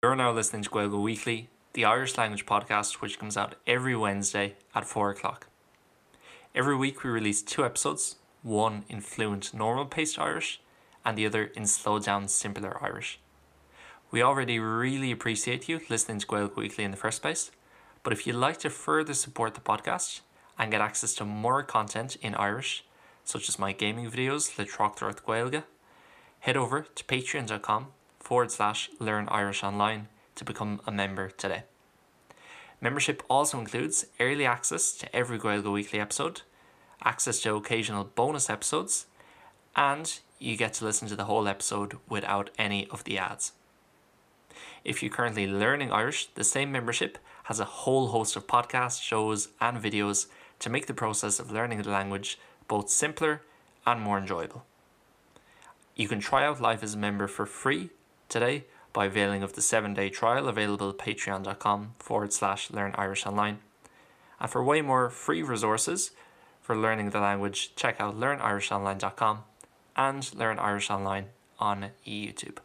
You're now listening to Gaeilge Weekly, the Irish language podcast which comes out every Wednesday at 4 o'clock. Every week we release two episodes, one in fluent normal paced Irish and the other in slow down simpler Irish. We already really appreciate you listening to Gaeilge Weekly in the first place, but if you'd like to further support the podcast and get access to more content in Irish, such as my gaming videos le Tráchtaireacht Gaeilge, head over to patreon.com forward slash learn Irish online to become a member today. Membership also includes early access to every Gaeilge Weekly episode, access to occasional bonus episodes, and you get to listen to the whole episode without any of the ads. If you're currently learning Irish, the same membership has a whole host of podcasts, shows and videos to make the process of learning the language both simpler and more enjoyable. You can try out life as a member for free today by availing of the 7-day trial available at patreon.com forward slash learn Irish online. And for way more free resources for learning the language, check out learnirishonline.com and Learn Irish Online on YouTube.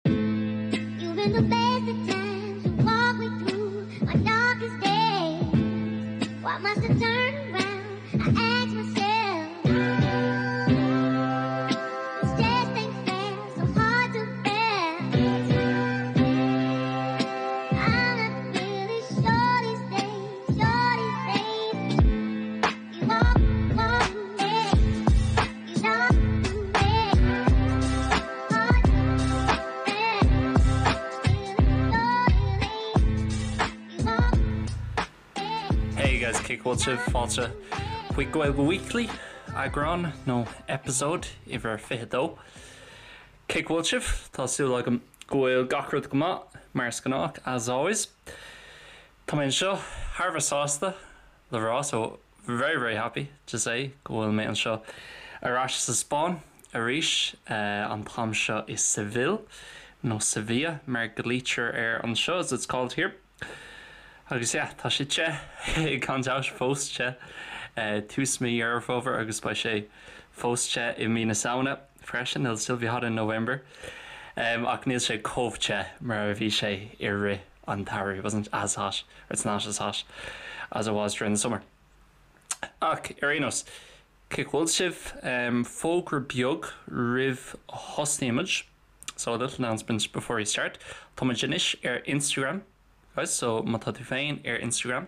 You've been the best of times to walk me through my darkest days. Why must I turn around? I ask myself. This just ain't fair, so hard to bear. I'm not really sure these days, sure these days. You walk, walk me, you talk to me. Hard Hey guys, cén chaoi a bhfuil sibh? Fáilte chuig Gaeilge Weekly, eagrán nó episode uimhir 22. Cén chaoi a bhfuil sibh? Tá súil agam go bhfuil gach rud go maith, mar is gnách, as always. Tá mé anseo thar a bheith sásta le rá, so very very happy to say go bhfuil mé anseo ar ais sa Spáinn arís, an t-am seo i Seville, nó Sevilla mar a ghlaoitear air anseo, as it's called here. Agus yeah, tá sé te, gan dabht, fós te, tús mí Dheireadh Fómhair agus beidh sé fós te i mí na Samhna freisin, it'll still be hot in November. Ach níl sé chomh te mar a bhí sé i rith an tsamhraidh, it wasn't as hot, or it's not as hot as it was during the summer. Ach ar aon nós, cén chaoi a bhfuil sibh? Fógra beag roimh a thosnaímid. So a little announcement before we start. Tá muid anois ar Instagram, guys, so má tá tú féin ar Instagram,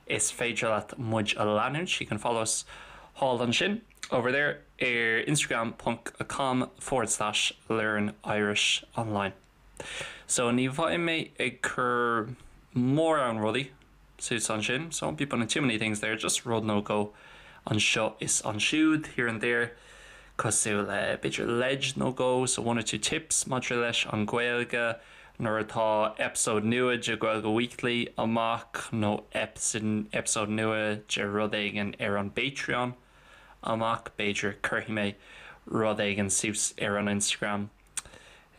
is féidir leat muid a leanúint, you can follow us thall ansin, over there, ar instagram ponc com forward slash learn Irish online. So ní bheidh mé ag cur mórán rudaí suas ansin, so won't be putting too many things there, just rud nó dhó anseo is ansiúd, here and there, cosúil le b'fhéidir leid nó dhó, so one or two tips maidir leis an Ghaeilge nuair atá episode nua de Gaeilge Weekly amach nó episode nua de rud éigin ar an bPatreon amach, b'fhéidir cuirfidh mé rud éigin suas ar an Instagram.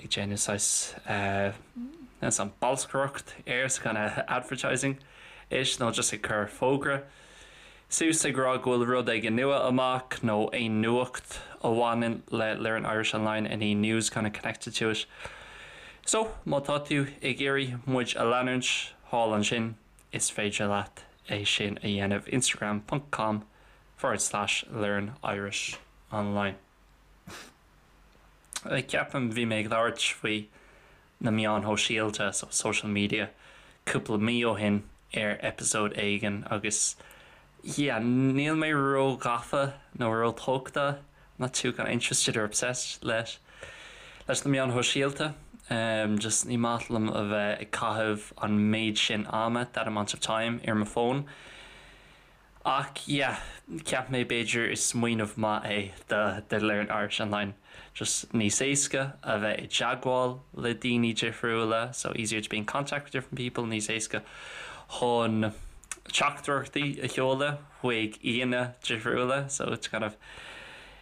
ag déanamh saghas an bolscaireacht air so kind of advertising ish nó just ag cur fógra suas ag rá go bhfuil rud éigin nua amach nó aon nuacht a bhaineann le Learn Irish Online any news kind of connected to it. So má tá tú ag iarraidh muid a leanúint thall ansin is féidir leat é sin a dhéanamh instagram ponc com forward slash learn Irish online. Ceapaim bhí mé ag labhairt faoi na meáin shóisialta, so social media, cúpla mí ó shin ar episode éigin agus yeah, níl mé ró-ghafa nó ró-tógtha, not too kind of interested or obsessed leis leis na meáin shóisialta. Just ní maith liom a bheith ag caitheamh an méid sin ama, that amount of time, ar mo fón. Ach yeah, cheap mé b'fhéidir is smaoineamh maith é do do Learn Irish Online just níos éasca a bheith i dteagmháil le daoine difriúla, so easier to be in contact with different people, níos éasca chun teachtaireachtaí a sheoladh chuig aíonna difriúla, so to kind of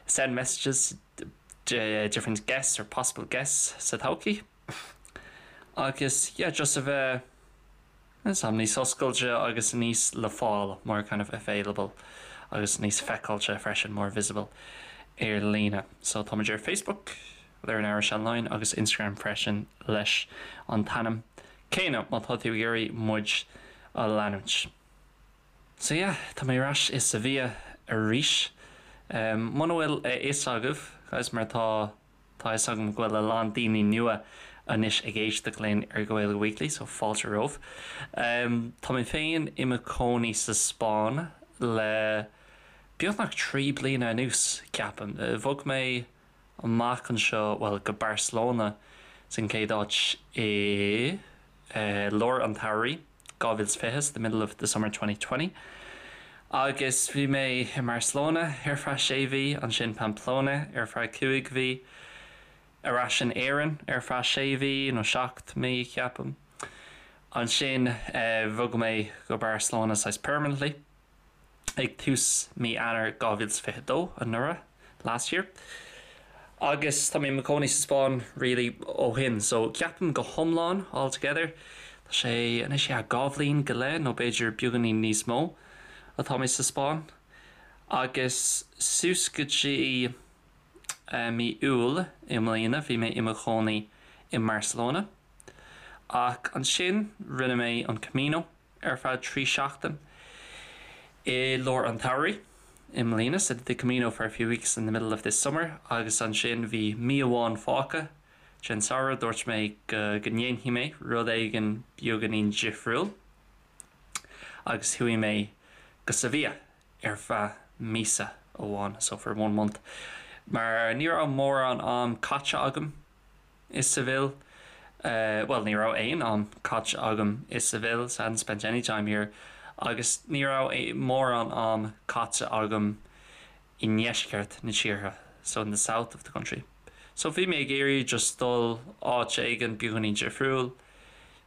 send messages to different guests or possible guests sa todhchaí. Agus yeah, just a bheith. Is am níos oscailte agus níos le fáil, more kind of available, agus níos feiceáilte freisin, more visible, ar líne. So táimid ar Facebook, Learn Irish Online agus Instagram freisin leis an t-ainm céanna má tá tú ag iarraidh muid a leanúint. So yeah, tá mé ar ais i Sevilla arís. Muna bhfuil a fhios agaibh, guys, mar tá tá a fhios agam go bhfuil a lán daoine nua anois ag éisteacht linn ar Gaeilge Weekly, so fáilte romhaibh. Tá mé féin i mo chónaí sa Spáinn le beagnach 3 bliana anuas, ceapaim. Bhog mé amach anseo, bhuel, go Barcelona san chéad áit i lár an tsamhraidh 2020, the middle of the summer 2020, agus bhí mé i mBarcelona ar feadh sé mhí, ansin Pamplona ar feadh cúig mhí, ar ais in Éirinn ar feadh sé mhí nó seacht mí, ceapaim. Ansin bhog mé go Barcelona saghas permanently. ag tús mí Eanáir 2022, anuraidh, last year, agus tá mé i mo chónaí sa Spáinn really ó shin so ceapaim go hiomlán, all together, tá sé anois yeah dhá bhliain go leith nó b'fhéidir beagáinín níos mó atá mé sa Spáinn agus suas go dtí mí Iúil i mbliana bhí mé i mo chónaí i mBarcelona ach ansin rinne mé an Camino ar feadh 3 seachtain i lár an tsamhraidh i mbliana, so did the Camino for a few weeks in the middle of this summer agus ansin bhí mí amháin fágtha den samhradh, dúirt mé go go ndéanfaidh mé rud éigin beagáinín difriúil agus chuaigh mé go Sevilla ar feadh míosa amháin, so for one month, mar ní raibh mórán am caite agam i Seville. Bhuel, ní raibh aon am caite agam i Seville, so I hadn't spent any time here, agus ní raibh mórán am caite agam i ndeisceart na tíre, so in the south of the country. So bhí mé ag iarraidh just dul áit éigin beagáinín difriúil.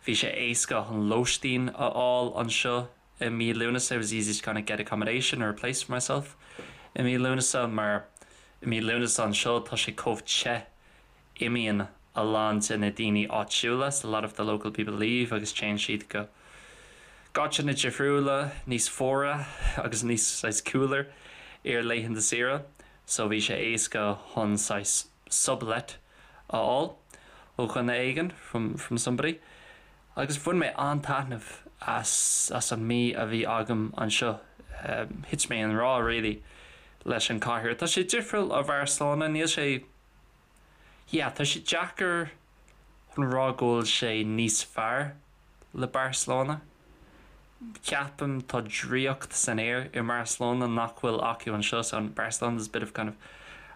Bhí sé éasca an lóistín a fháil anseo i mí Lúnasa, it was easy to kind of get accommodation or a place for myself i mí Lúnasa, mar i mí Lúnasa anseo tá sé chomh te Imíonn a lán de na daoine áitiúla, so a lot of the local people leave, agus téann siad go áiteanna difriúla, níos fuaire agus níos saghas cooler ar laethanta saoire, so bhí sé éasca chun saghas sublet a fháil ó dhuine éigin, from from somebody. Agus bhain mé an-taitneamh as as an mí a bhí agam anseo. Thit mé i ngrá really leis an cathair. Tá sé difriúil ó Bharcelona, níl sé. Yeah, tá sé deacair chun rá go bhfuil sé níos fearr le Barcelona. Ceapaim tá draíocht san aer i mBarcelona nach bhfuil acu anseo, so in Barcelona there's a bit of kind of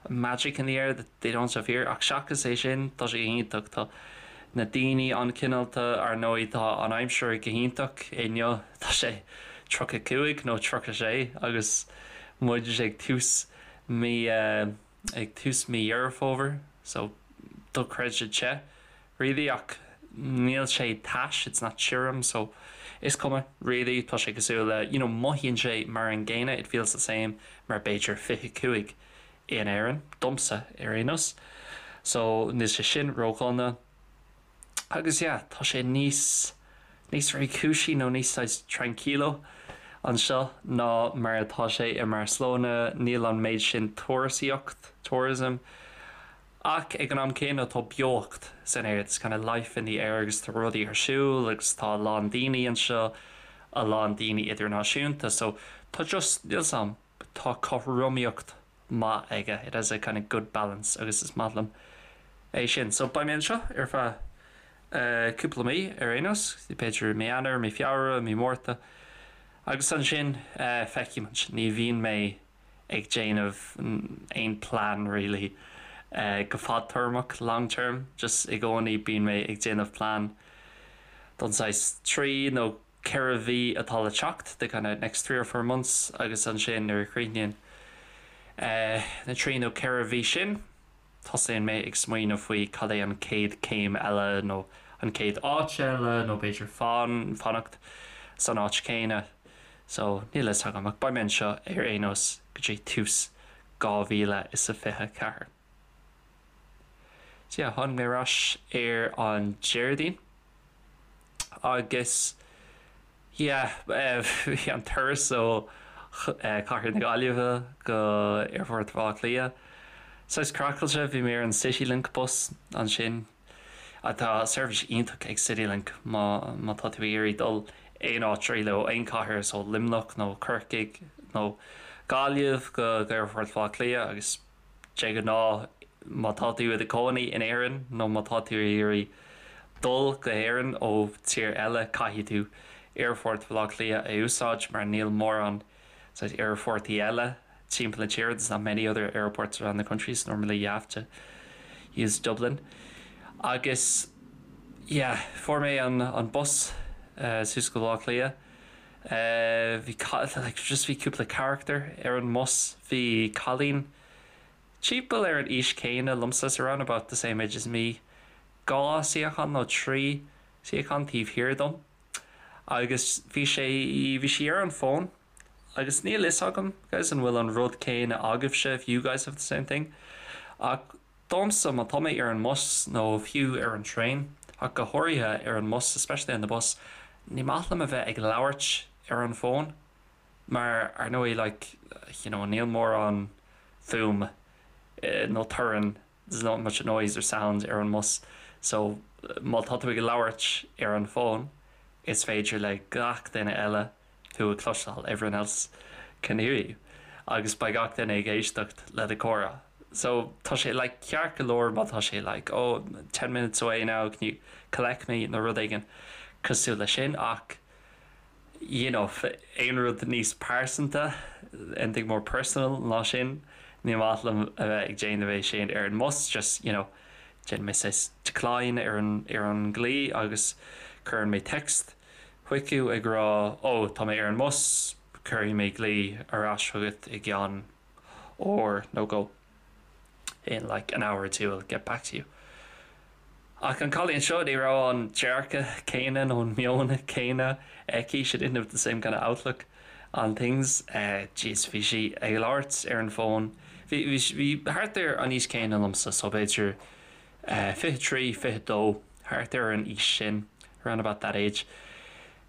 magic in the air that they don't have here. Ach seachas é sin, tá sé go hiontach. Tá na daoine an-chineálta, ar ndóigh tá an aimsir go hiontach inniu, tá sé 35 nó 36 agus muid ag tús mí ag tús mí Dheireadh Fómhair so dochreidte te really ach níl sé tais, it's not tirim so is cuma really, tá sé cosúil le you know mothaíonn sé mar an gcéanna, it feels the same mar b'fhéidir 25 in Éirinn, domsa ar aon nós so níl sé sin ródhona. Agus yeah, tá sé níos, níos réchúisí nó níos saghas tranquilo anseo ná mar atá sé i mBarcelona, níl an méid sin turasóireacht, tourism, ach ag an am céanna tá beocht san aer, there's kind of life in the air agus tá rudaí ar siúl agus tá a lán daoine anseo, a lán daoine idirnáisiúnta so tá just, níl 's a'm, tá cothromaíocht maith aige, it has a kind of good balance agus is maith liom é sin. So beidh mé anseo ar feadh cúpla mí ar aon nós, b'fhéidir mí Eanáir, mí Feabhra, mí Márta agus ansin feicfidh muid. Ní bhíonn mé ag déanamh aon plean really go fadtéarmach, long term, just i gcónaí bíonn mé ag déanamh plean don saghas trí nó 4 mhí atá le teacht, the kind of next 3 or 4 months, agus ansin nuair a chríochnaíonn na trí nó 4 mhí sin, tosaíonn mé ag smaoineamh faoi cad é an chéad chéim eile nó an chéad áit eile nó b'fhéidir fan, fanacht san áit chéanna. So, níl a fhios agam ach beidh mé anseo ar aon nós go dtí tús 2024. So yeah, tháinig mé ar ais ar an Déardaoin. Agus yeah, bhí an turas ó Chathair na Gaillimhe go Aerfort Bhaile Átha Cliath. Saghas craiceáilte, bhí mé ar an Citylink bus ansin. Tá seirbhís iontach ag Citylink má má tá tú ag iarraidh dul aon áit really ó aon chathair so Luimneach nó Corcaigh nó Gaillimh go Aerfort Bhaile Átha Cliath agus de ghnáth má tá tú i do chónaí in Éirinn nó má tá tú ag iarraidh dul go hÉirinn ó tír eile caithfidh tú Aerfort Bhaile Átha Cliath a úsáid mar níl mórán saghas aerfortaí eile timpeall na tíre there's not many other airports around the country so normally you have to use Dublin. Agus yeah fuair mé an an bus suas go Baile Átha Cliath. Bhí like just bhí cúpla charachtar ar an mbus. Bhí cailín timpeall ar an aois céanna liomsa so around about the same age as me dhá suíochán nó trí suíochán taobh thiar dom. Agus bhí sé bhí sí ar an bhfón agus níl fhios agam guys an bhfuil an rud céanna agaibhse if you guys have the same thing ach domsa má tá mé ar an mbus nó fiú ar an traein ach go háirithe ar an mbus especially on the bus ní maith liom a bheith ag labhairt ar an bhfón mar ar ndóigh like you know níl mórán fuaim nó torann there's not much noise or sound ar an mbus so má tá tú ag labhairt ar an bhfón is féidir le gach duine eile tú a chloisteáil everyone else can hear you agus beidh gach duine ag éisteacht le do chomhrá so tá sé like ceart go leor má tá sé like oh 10 minutes away now can you collect me nó rud éigin cosúil leis sin ach you know aon rud níos pearsanta anything more personal ná sin ní maith liom a bheith ag déanamh é sin ar an mbus just you know déanann mé saghas decline ar an ar an nglao agus cuireann mé text chuici ag rá 'Ó, tá mé ar an mbus, cuirfidh mé glao ar ais chugat i gceann uair nó dhó. In like an hour or two I'll get back to you. Ach an cailín seo, ní raibh an dearcadh céanna nó an meon céanna aici, she didn't have the same kind of outlook on things. Jeez, bhí sí ag labhairt ar an bhfón. Bhí, bhí, bhí thart ar an aois céanna liomsa, so b'fhéidir 23, 22, thart ar an aois sin, around about that age.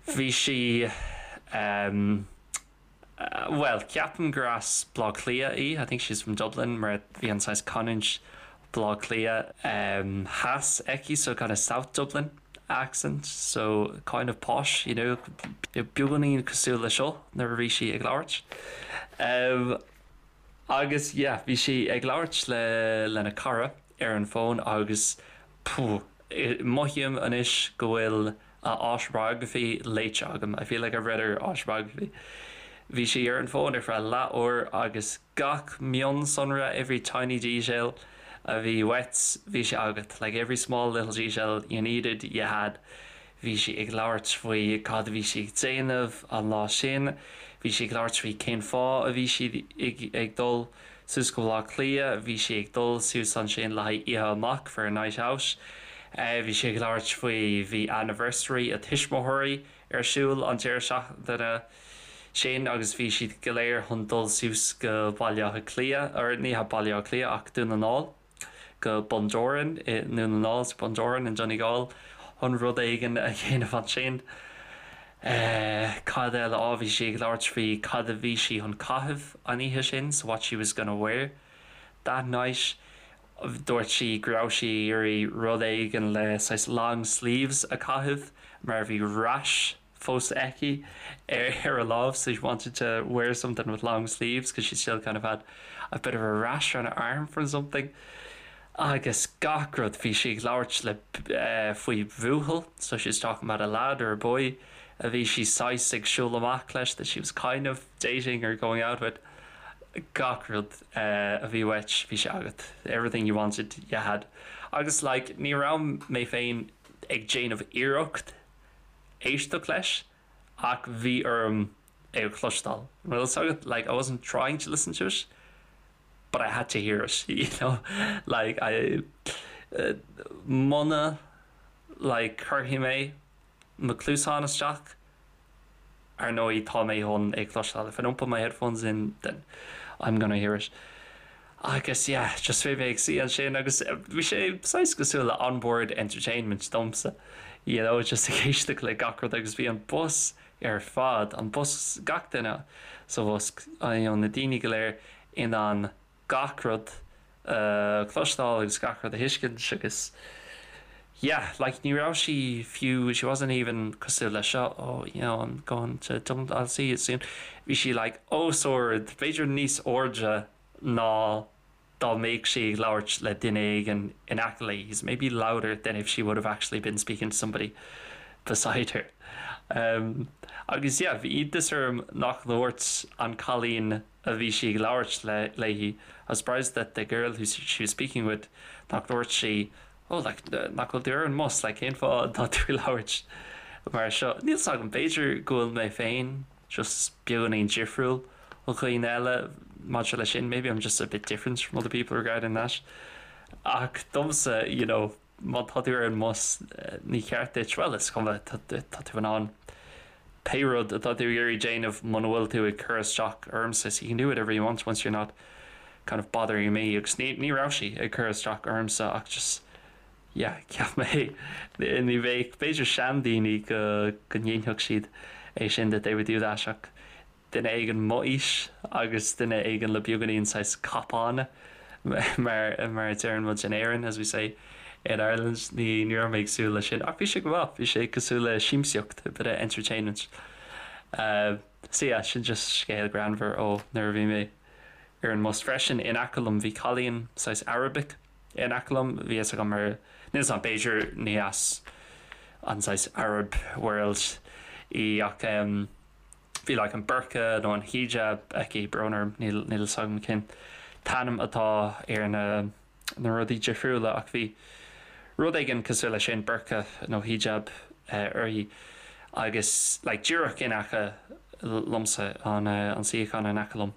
Bhí sí, bhuel, ceapaim gur as Baile Átha Cliath í, I think she's from Dublin, mar bhí an saghas canúint Baile Átha Cliath theas aici, so kind of South Dublin accent, so kind of posh, you know, beagáinín cosúil le seo nuair a bhí sí ag labhairt. Agus yeah, bhí sí ag labhairt le lena cara ar an bhfón agus phew, mothaím anois go bhfuil a autobiography léite agam, I feel like I've read her autobiography. Bhí sí ar an bhfón ar feadh leath uair agus gach mionsonra, every tiny detail a bhí uait, bhí sé agat, like every small little detail you needed, you had. Bhí sí ag labhairt faoi cad a bhí sí ag déanamh an lá sin, bhí sí ag labhairt faoi cén fáth a bhí sí ag dul suas go Baile Átha Cliath, bhí sí ag dul suas ansin le haghaidh oíche amach for a night out, bhí sí ag labhairt faoi bhí anniversary a tuismitheoirí ar siúl an deireadh seachtaine sin agus bhí siad go léir chun dul suas go Baile Átha Cliath, or ní hea Baile Átha Cliath ach Dún na nGall. go Bundoran i nDún na nGall, Bundoran in Donegal, chun rud éigin a dhéanamh ansin. Cad eile? Á, bhí sí ag labhairt faoi cad a bhí sí chun caitheamh an oíche sin, so what she was gonna wear that night. Dúirt sí go raibh sí ag iarraidh rud éigin le saghas long sleeves a chaitheamh mar bhí rash fós aici ar a lámh so she wanted to wear something with long sleeves because she still kind of had a bit of a rash on her arm from something. Agus gach rud bhí sí ag labhairt le faoi bhuachaill so she was talking about a lad or a boy a bhí sí saghas ag siúl amach leis that she was kind of dating or going out with. Gach rud a bhí uait bhí sé agat everything you wanted you had. Agus like ní raibh mé féin ag déanamh iarracht éisteacht leis ach bhí orm é a chloisteáil. An bhfuil fhios agat? Like I wasn't trying to listen to it but I had to hear it, you know? Like I muna like cuirfidh mé mo chluasáin isteach Ar ndóigh, tá mé chun é cloisteáil. If I don't put my headphones in, then I'm gonna hear it. Agus yeah, just bhí mé ag suí ansin agus bhí sé saghas cosúil le onboard entertainment domsa, you know, just ag éisteacht le gach rud agus bhí an bus ar fad, an bus, gach duine sa bhus, you know, na daoine go léir in ann gach rud. a chloisteáil agus gach rud a thuiscint agus yeah like ní raibh sí fiú she wasn't even cosúil le seo oh you know I'm going to Dublin I'll see you soon bhí sí like os ard b'fhéidir níos airde ná dá mbeadh sí ag labhairt le duine éigin in aice léi is maybe louder than if she would have actually been speaking to somebody beside her. Um, agus yeah, bhí iontas orm nach ndúirt an cailín a bhí sí ag labhairt le léi I was surprised that the girl who she was speaking with nach ndúirt sí oh like nach bhfuil tú ar an mbus like cén fáth atá tú ag labhairt mar seo. Níl 's agam b'fhéidir go bhfuil mé féin just beagáinín difriúil ó dhaoine eile maidir leis sin maybe I'm just a bit different from other people regarding that. Ach domsa you know má tá tú ar an mbus ní ceart duit well is cuma tá tú in ann pé rud atá tú ag iarraidh déanamh muna bhfuil tú ag cur isteach ormsa so you can do whatever you want once you're not kind of bothering me agus ní ní raibh sí ag cur isteach ormsa ach just yeah cheap mé ní bheadh b'fhéidir seandaoine go go ndéanfadh siad é sin that they would do that ach duine éigin m'aois agus duine éigin le beagáinín saghas cupán mar mar a deireann muid in Éirinn as we say in Ireland ní ní raibh mé ag súil leis sin ach bhí sé go maith bhí sé cosúil le siamsaíocht a bit of entertainment. Uh, so yeah, sin just scéal greannmhar ó nuair a bhí mé ar an mbus freisin in aice liom bhí cailín saghas Arabic in aice liom bhí fhios agam ar níl 's agam b'fhéidir ní as an saghas Arab world í ach um, bhí like an burqa nó an hijab aici brón orm níl níl 's agam cén t-ainm atá ar na na rudaí difriúla ach bhí rud éigin cosúil leis sin burqa nó hijab uirthi agus like díreach in aice liomsa an an suíochán in aice liom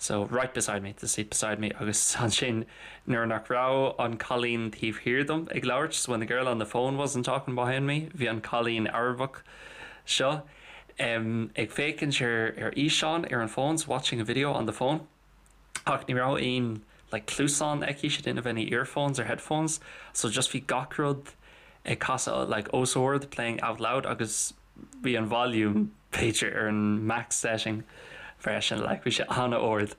so right beside me the seat beside me agus ansin nuair nach raibh an cailín taobh thiar dom ag labhairt so when the girl on the phone wasn't talking behind me bhí an cailín Arabach seo um, ag féachaint ar ar fhíseán ar an phone so watching a video on the phone ach ní raibh aon like cluasán aici she didn't have any earphones or headphones so just bhí gach rud ag casadh like os ard playing out loud agus bhí an volume b'fhéidir ar an max setting freisin like bhí sé an-ard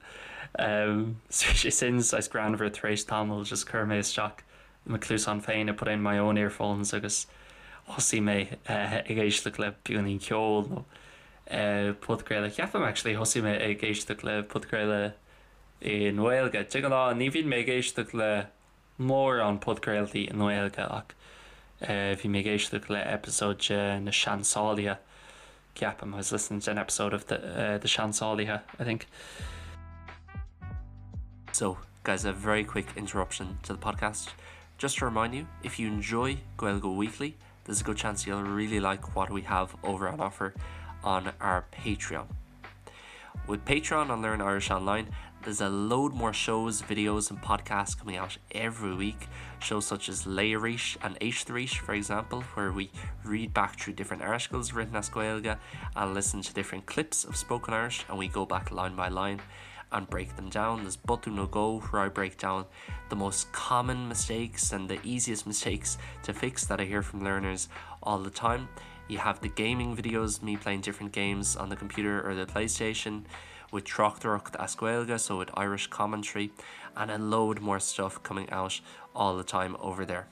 um, so bhí sé sin saghas greannmhar tar éis tamaill just chuir mé isteach mo chluasáin féin I put in my own earphones agus thosaigh mé uh, ag éisteacht le beagáinín ceoil nó uh, podchraoladh ceapaim actually thosaigh mé ag éisteacht le podchraoladh i nGaeilge. De ghnáth ní bhíonn mé ag éisteacht le mórán podchraoltaí i nGaeilge ach uh, bhí mé ag éisteacht le episode de na Seansálaithe ceapaim I was listening to an episode of the, uh, the Seansálaithe I think. So guys a very quick interruption to the podcast. Just to remind you, if you enjoy Gaeilge Weekly, there's a good chance you'll really like what we have over on offer on our Patreon. With Patreon on Learn Irish Online, there's a load more shows, videos and podcasts coming out every week. Shows such as Léigh Arís and Éist Arís, for example, where we read back through different articles written as Gaeilge and listen to different clips of spoken Irish and we go back line by line and break them down. There's Botún nó Dhó where I break down the most common mistakes and the easiest mistakes to fix that I hear from learners all the time. You have the gaming videos, me playing different games on the computer or the PlayStation with Tráchtaireacht as Gaeilge, so with Irish commentary, and a load more stuff coming out all the time over there.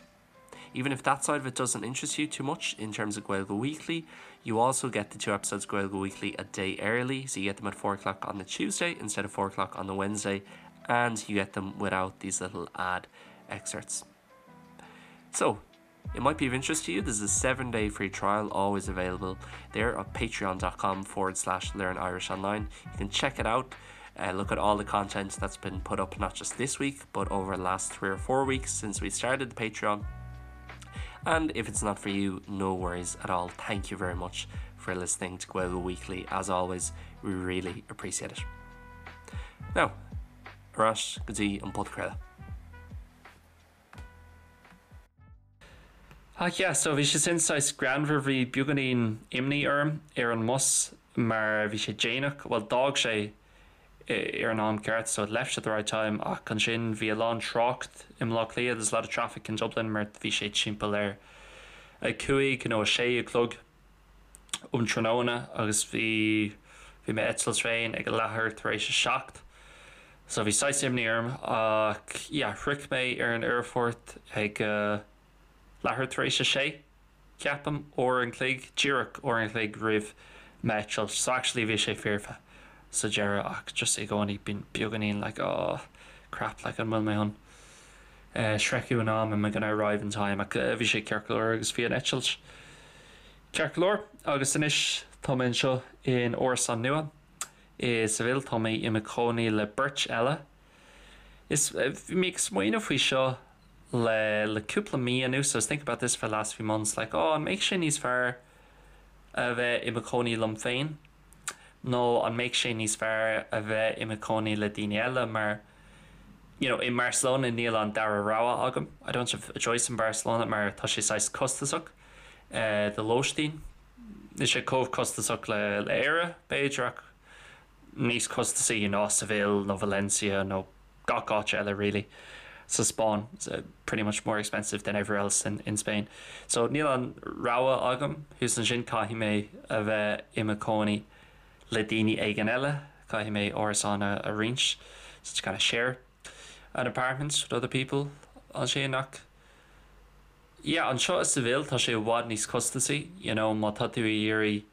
Even if that side of it doesn't interest you too much in terms of Gaeilge Weekly, you also get the two episodes Gaeilge Weekly a day early, so you get them at 4 o'clock on the Tuesday instead of 4 o'clock on the Wednesday, and you get them without these little ad excerpts. So, it might be of interest to you. There's a 7-day free trial always available there at patreon.com forward slash learn Irish online. You can check it out. Uh, look at all the content that's been put up not just this week but over the last 3 or 4 weeks since we started the Patreon. And if it's not for you, no worries at all. Thank you very much for listening to Gaeilge Weekly. As always, we really appreciate it. Now, ar ais go dtí an podchraoladh. Ach yeah, so bhí sé sin saghas greannmhar, bhí beagáinín imní orm ar an mbus mar bhí sé déanach, bhuel d'fhág sé ar an am ceart so it left at the right time ach ansin bhí a lán trácht i mBleá Cliath, there's a lot of traffic in Dublin mar bhí sé timpeall ar a 5 nó a 6 a chlog um tráthnóna agus bhí bhí m'eitilt féin ag a leathuair tar éis a 7. So bhí saghas imní orm ach yeah shroich mé ar an aerfort ag leathuair tar éis a sé, ceapaim, uair an chloig, díreach uair an chloig roimh m'eitilt. So actually bhí sé foirfe sa deireadh ach just i gcónaí bíonn beagáinín like oh crap like an bhfuil mé chun sroicheadh in am, am I gonna arrive in time ach bhí sé ceart go leor agus bhí an eitilt ceart go leor agus anois tá mé anseo in árasán nua. I Seville tá mé i mo chónaí le beirt eile. Is bhí mé ag smaoineamh faoi seo le le cúpla mí anuas, I was thinking about this for the last few months, like oh an mbeadh sé níos fearr a bheith i mo chónaí liom féin nó an mbeadh sé níos fearr a bheith i mo chónaí le daoine eile mar you know i mBarcelona níl an dara rogha agam, I don't have a choice in Barcelona mar tá sé saghas costasach do lóistín. Níl sé chomh costasach le Éire, b'fhéidir, ach níos costasaí ná Seville nó Valencia nó gach áit eile really sa Spáinn. It's pretty much more expensive than everywhere else in in Spain. So níl an rogha agam thuas ansin, caithfidh mé a bheith i mo chónaí le daoine éigin eile, caithfidh mé árasán a roinnt, so to kind of share an apartment with other people ansin ach Yeah, anseo i Seville tá sé i bhfad níos costasaí, you know, má tá tú ag iarraidh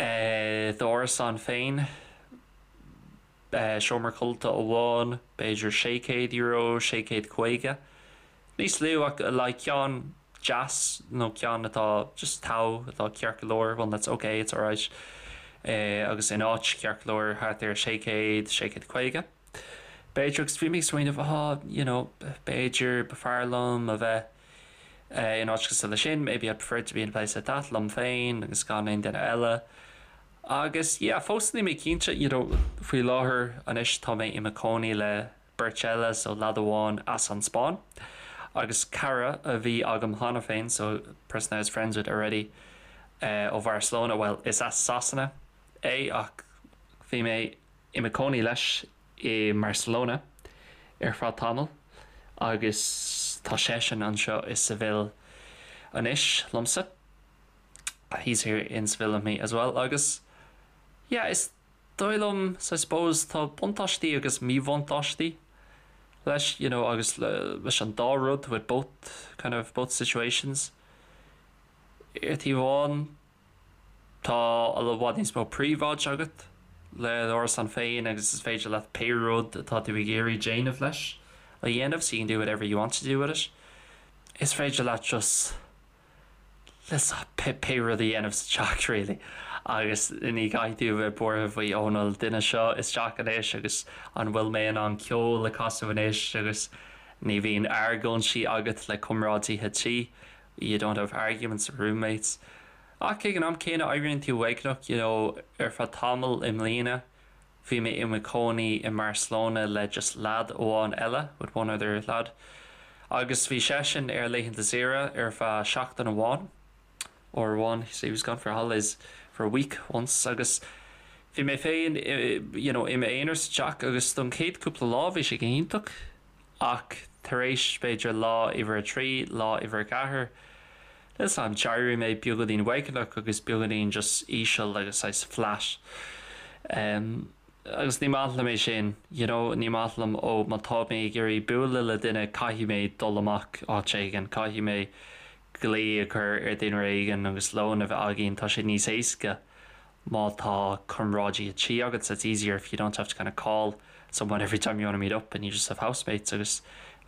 eh d'árasán féin, eh seomra codlata amháin, b'fhéidir €600, 650. Níos lú ach like ceann deas nó ceann atá just togha, atá ceart go leor, one that's okay, it's alright, eh agus in áit ceart go leor thart ar 600, 650. B'fhéidir, agus bhí mé ag smaoineamh, ah, you know, b'fhéidir b'fhearr liom a bheith in áit cosúil leis sin, maybe I'd prefer to be in a place like that, liom féin agus gan aon duine eile. Agus yeah, fós níl mé cinnte, you know, faoi láthair anois tá mé i mo chónaí le beirt eile, so leaid amháin as an Spáinn agus cara a bhí agam cheana féin, so person I was friends with already, ó Bharcelona, well, is as Sasana é ach bhí mé i mo chónaí leis i mBarcelona ar feadh tamaill agus tá seisean anseo i Seville anois liomsa. He's here in Seville with me as well agus yeah is dóigh liom so I suppose tá buntáistí agus míbhuntáistí leis you know agus leis an dá rud with both kind of both situations. Ar taobh amháin Tá i bhfad níos mó príobháid agat le d'árasán féin agus is féidir leat pé rud atá tú ag iarraidh déanamh leis a dhéanamh, so you can do whatever you want to do with it. Is féidir leat just pé rud a dhéanamh sa teach really agus ní chaithfidh tú a bheith buartha faoi oh an bhfuil duine seo isteach anois agus an bhfuil mé in ann ceol a chasadh anois agus ní bhíonn argóintí agat le comrádaithe tí you don't have arguments with roommates. Ach ag an am céanna éiríonn tú uaigneach, you know, ar feadh tamaill i mbliana bhí mé i mo chónaí i mBarcelona le just leaid amháin eile, with one other lad, agus bhí seisean ar laethanta saoire ar feadh seachtain amháin, uair amháin, so he was gone for holidays for a week once, agus bhí mé féin, you know, i m'aonar sa teach agus don chéad cúpla lá bhí sé go hiontach. Ach tar éis, b'fhéidir, lá uimhir a trí, lá uimhir a ceathair, níl 's a'm, d'éirigh mé beagáinín uaigneach agus beagáinín just íseal agus saghas flat. Agus ní maith liom é sin, you know, ní maith liom, ó má tá mé ag iarraidh bualadh le duine caithfidh mé dul amach áit éigin, caithfidh mé glao a chur ar duine éigin agus lón a bheith againn, tá sé níos éasca má tá comrádaithe tí agat, so it's easier if you don't have to kind of call someone every time you want to meet up and you just have housemates agus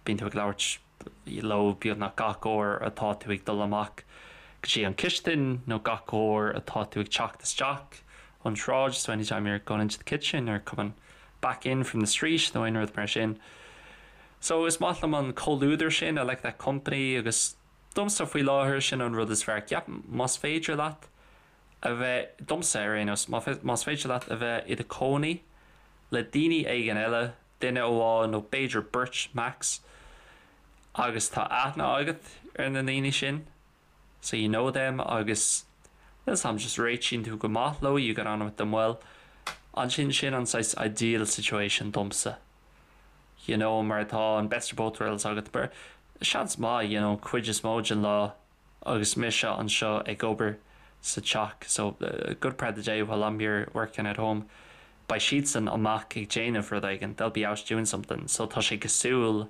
bíonn tú ag labhairt leo beagnach gach uair atá tú ag dul amach go dtí an chistin nó gach uair atá tú ag teacht isteach ón tsráid, so anytime you're going into the kitchen or coming back in from the street nó aon rud mar sin. So is maith liom an comhluadar sin, I like that company agus domsa faoi láthair sin an rud is fearr. Ceapaim más féidir leat a bheith, domsa ar aon nós, más féidir leat a bheith i do chónaí le daoine éigin eile, duine amháin nó b'fhéidir beirt max, agus tá aithne agat ar na daoine sin, so you know them, agus níl 's a'm, just réitíonn tú go maith leo, you get on with them well, ansin sin an saghas ideal situation domsa, you know, mar tá an best of both worlds agat, mar seans maith, you know, cuid is mó den lá, agus mise anseo ag obair sa teach so a good part of the day while I'm here working at home. beidh siadsan amach ag déanamh rud éigin, they'll be out doing something, so tá sé cosúil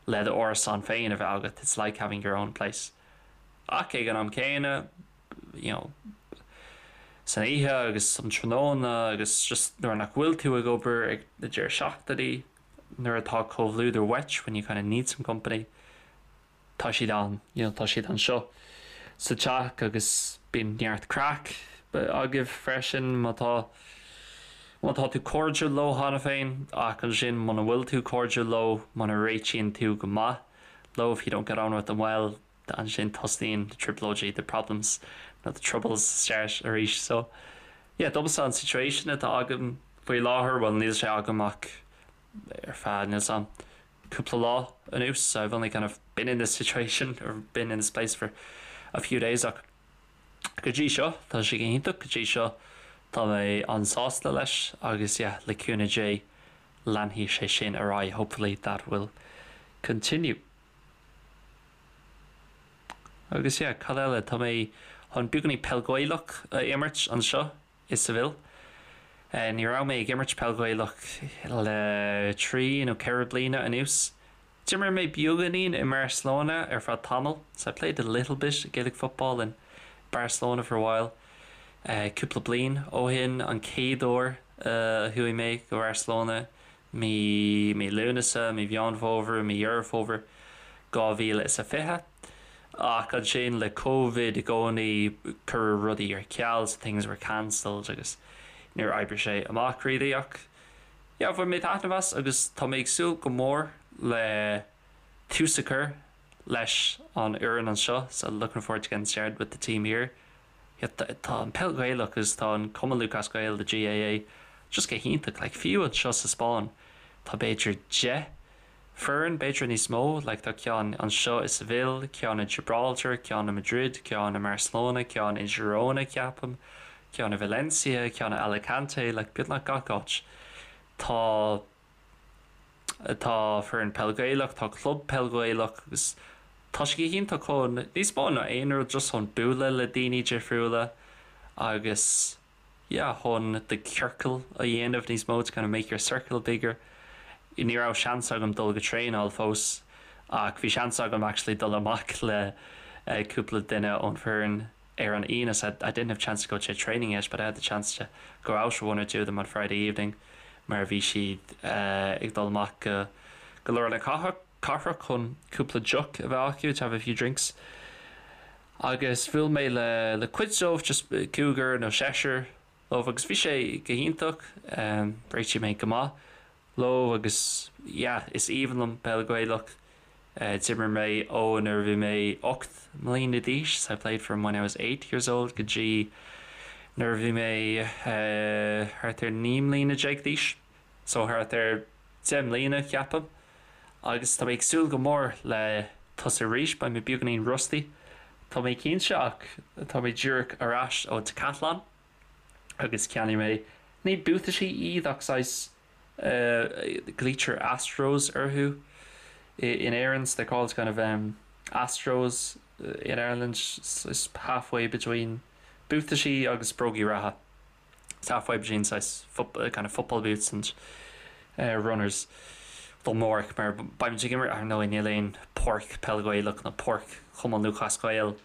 le d'árasán féin a bheith agat, it's like having your own place. Ach ag an am céanna, you know, san oíche agus um tráthnóna agus just nuair nach bhfuil tú ag obair ag na deireadh seachtainí, nuair atá comhluadar uait, when you kind of need some company, tá siad ann, you know, tá siad anseo sa teach agus bíonn neart craic agaibh freisin má tá má tá tú cairdiúil leo cheana féin ach ansin muna bhfuil tú cairdiúil leo, muna réitíonn tú go maith leo, if you don't get on with them well, ansin tosaíonn na trioblóidí, the problems nó the troubles start arís. So yeah, domsa an situation atá agam faoi láthair, bhuel níl sé agam ach ar feadh níl 's a'm cúpla lá anuas, so I've only kind of been in this situation or been in this place for a few days ach go dtí seo tá sé go hiontach, go dtí seo tá mé an-sásta leis agus yeah le cúnamh Dé leanfaidh sé sin ar aghaidh, hopefully that will continue. Agus yeah, cad eile, tá mé chun beagáinín peil Ghaelach a imirt anseo i Seville. Ní raibh mé ag imirt peil Ghaelach le 3 nó 4 bliana anuas. D'imir mé beagáinín i mBarcelona ar feadh tamaill, so I played a little bit of Gaelic football in Barcelona for a while. Cúpla bliain ó shin an chéad uair a chuaigh mé go Barcelona mí mí Lúnasa, mí Mheán Fómhair, mí Dheireadh Fómhair 2020. Ach ansin le Covid i gcónaí cuireadh rudaí ar ceal so things were cancelled agus níor oibrigh sé amach really ach yeah bhain mé taitneamh as agus tá mé ag súil go mór le tús a chur leis an fhoireann anseo so looking forward to getting started with the team here. Tá an peil Ghaelach agus tá an Cumann Lúthchleas Gael, the GAA, just go hiontach. Like fiú anseo sa Spáinn tá b'fhéidir 10 foireann, b'fhéidir níos mó, like tá ceann anseo i Seville, ceann i Gibraltar, ceann i Madrid, ceann i mBarcelona, ceann i Girona ceapaim, ceann i Valencia, ceann i Alicante, like beagnach gach áit tá Tá foireann peil Ghaelach, tá club peil Ghaelach agus tá sé go hiontach chun níos mó ná aon rud just chun bualadh le daoine difriúla agus yeah chun do chiorcal a dhéanamh níos mó to kind of make your circle bigger. Ní raibh seans agam dul go traenáil fós ach bhí seans agam actually dul amach le cúpla duine ón foireann ar an Aoine so I didn't have chance to go to training yet but I had the chance to go out with one or two of them on Friday evening mar bhí siad ag dul amach go go lár na cathrach chun cúpla deoch a bheith acu to have a few drinks agus bhuail mé le le cuid dóibh just cúigear nó seisear dóibh agus bhí sé go hiontach réitigh mé go maith leo agus yeah is aoibhinn liom peil Ghaelach. D'imir mé ó nuair a bhí mé 8 mbliana d'aois, so I played from when I was 8 years old go dtí nuair a bhí mé thart ar 19 mbliana d'aois, so thart ar 10 mbliana ceapaim. Agus tá mé ag súil go mór le tosú arís, beidh mé beagáinín rusty tá mé cinnte ach tá mé díreach ar ais ó Decathlon agus cheannaigh mé, ní buataisí iad ach saghas glaoitear Astros orthu in Éirinn, so they're called kind of um, Astros in Ireland, it's halfway between buataisí agus brógaí reatha. It's halfway between saghas kind of football boots and uh, runners. Don amárach mar beimid ag imirt ar ndóigh níl aon páirc peil Ghaelach nó páirc Chumann Lúthchleas Gael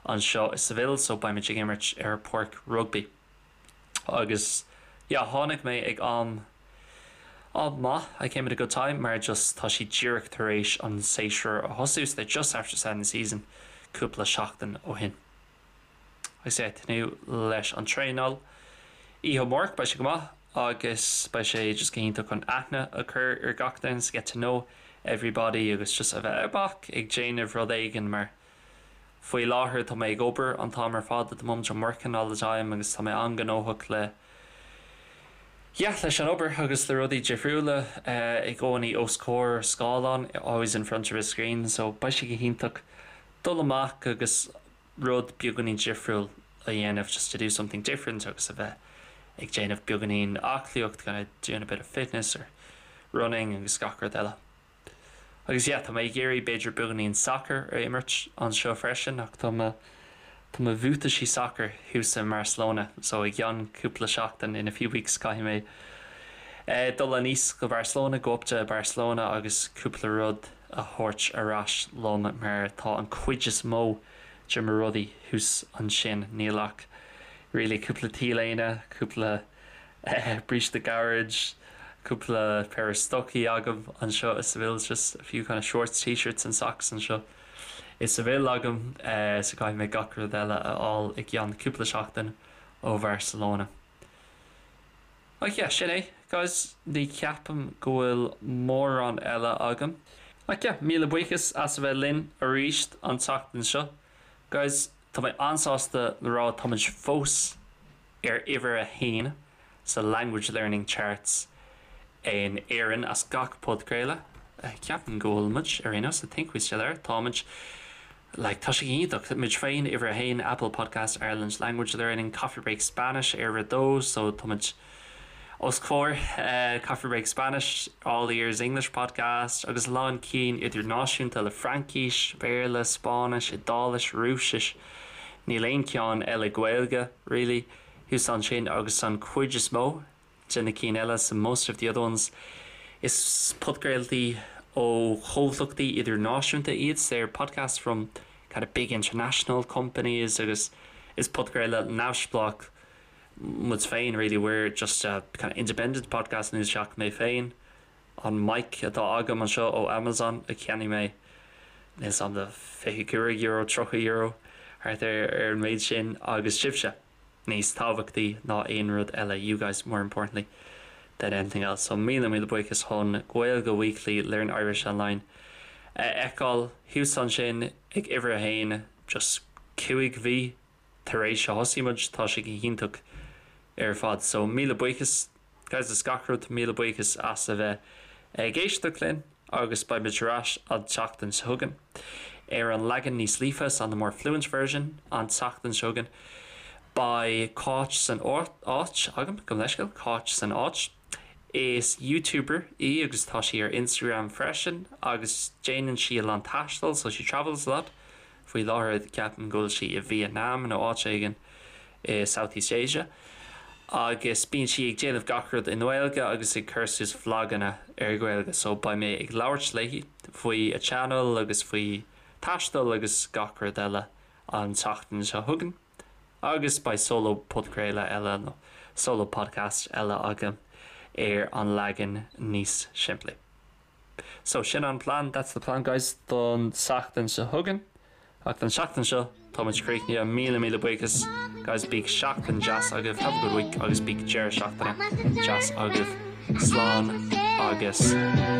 anseo i Seville so beimid ag imirt ar páirc rugbaí. Agus yeah tháinig mé ag am am maith, I came at a good time mar just tá siad díreach tar éis an séasúr a thosú so they're just after starting the season cúpla seachtain ó shin. Agus yeah tnúth leis an traenáil oíche amárach beidh sé go maith agus beidh sé just go hiontach chun aithne a chur ar gach duine so get to know everybody agus just a bheith amach ag déanamh rud éigin mar Faoi láthair tá mé ag obair an t-am ar fad, at the moment I'm working all the time agus tá mé an-ghnóthach le yeah leis an obair agus le rudaí difriúla i gcónaí os comhair scáileán, always in front of a screen so beidh sé go hiontach dul amach agus rud beagáinín difriúil a dhéanamh just to do something different agus a bheith ag déanamh beagáinín aclaíocht, kind of doing a bit of fitness or running agus gach rud eile. Agus yeah, tá mé ag iarraidh b'fhéidir beagáinín sacair a imirt anseo freisin ach tá mo tá mo bhuataisí sacair thuas i mBarcelona so i gceann cúpla seachtain, in a few weeks, caithfidh mé. Dul aníos go Barcelona, go up to Barcelona agus cúpla rud a thabhairt ar ais liom mar tá an cuid is mó de mo rudaí thuas ansin. Níl ach really cúpla T-léine, cúpla bríste gairid, cúpla péire stocaí agam anseo i Seville, just a few kind of shorts, t-shirts and socks anseo i Seville agam so caithfidh mé gach rud eile a fháil i gceann cúpla seachtain ó Bharcelona. Ach yeah, sin é, guys, ní cheapaim go bhfuil mórán eile agam. Ach yeah, míle buíochas as a bheith linn arís an tseachtain seo. Guys, tá mé an-sásta le rá táimid fós ar uimhir a haon sa Language Learning Charts in Éirinn as gach podchraoladh. Ceapaim go bhfuil muid, ar aon nós, I think we still are, táimid. Like, tá sé iontach, muid féin, uimhir a haon, Apple Podcast Ireland Language Learning, Coffee Break Spanish ar uimhir a dó, so tá muid os comhair Coffee Break Spanish, All Ears English Podcast, agus a lán cinn idirnáisiúnta le Fraincis, Béarla, Spáinnis, Iodáilis, Rúisis, níl aon cheann eile Gaeilge, really, thuas ansin agus an chuid is mó de na cinn eile, so most of the other ones. Is podchraoltaí ó chomhlachtaí idirnáisiúnta iad, so they're podcasts from kind of big international companies agus is podchraoladh neamhspleách muid féin really, we're just a kind of independent podcast níl ach mé féin, an mic atá agam anseo ó Amazon a cheannaigh mé níl 's a'm €25, €30 thart ar an méid sin agus sibhse. níos tábhachtaí ná aon rud eile, you guys more importantly than anything else. So míle míle buíochas chun Gaeilge Weekly, Learn Irish Online a fheiceáil thuas ansin ag uimhir a haon just 5 mhí tar éis a thosaigh muid, tá sé go hiontach ar fad. So míle buíochas guys as gach rud, míle buíochas as a bheith ag éisteacht linn agus beidh muid ar ais an tseachtain seo chugainn ar an leagan níos líofa, so on the more fluent version an tseachtain seo chugainn. Beidh Cáit san áit agam, gabh mo leithscéal, Cáit san áit. Is YouTuber í agus tá sí ar Instagram freisin agus déanann sí a lán taistil, so she travels a lot. Faoi láthair ceapaim go bhfuil sí i Vietnam nó áit éigin i South East Asia agus bíonn sí ag déanamh gach rud i nGaeilge agus ag cur suas vloganna ar Ghaeilge so beidh mé ag labhairt léi faoi a channel agus faoi taisteal agus gach rud eile an tseachtain seo chugainn agus beidh solo podchraoladh eile nó solo podcast eile agam ar an leagan níos simplí. So, sin an plean, that's the plan guys, don tseachtain seo chugainn. Ach don tseachtain seo, tá muid críochnaithe. Míle míle buíochas guys, bíodh seachtain deas agaibh, have a good week, agus bíodh deireadh seachtaine deas agaibh. Slán agus.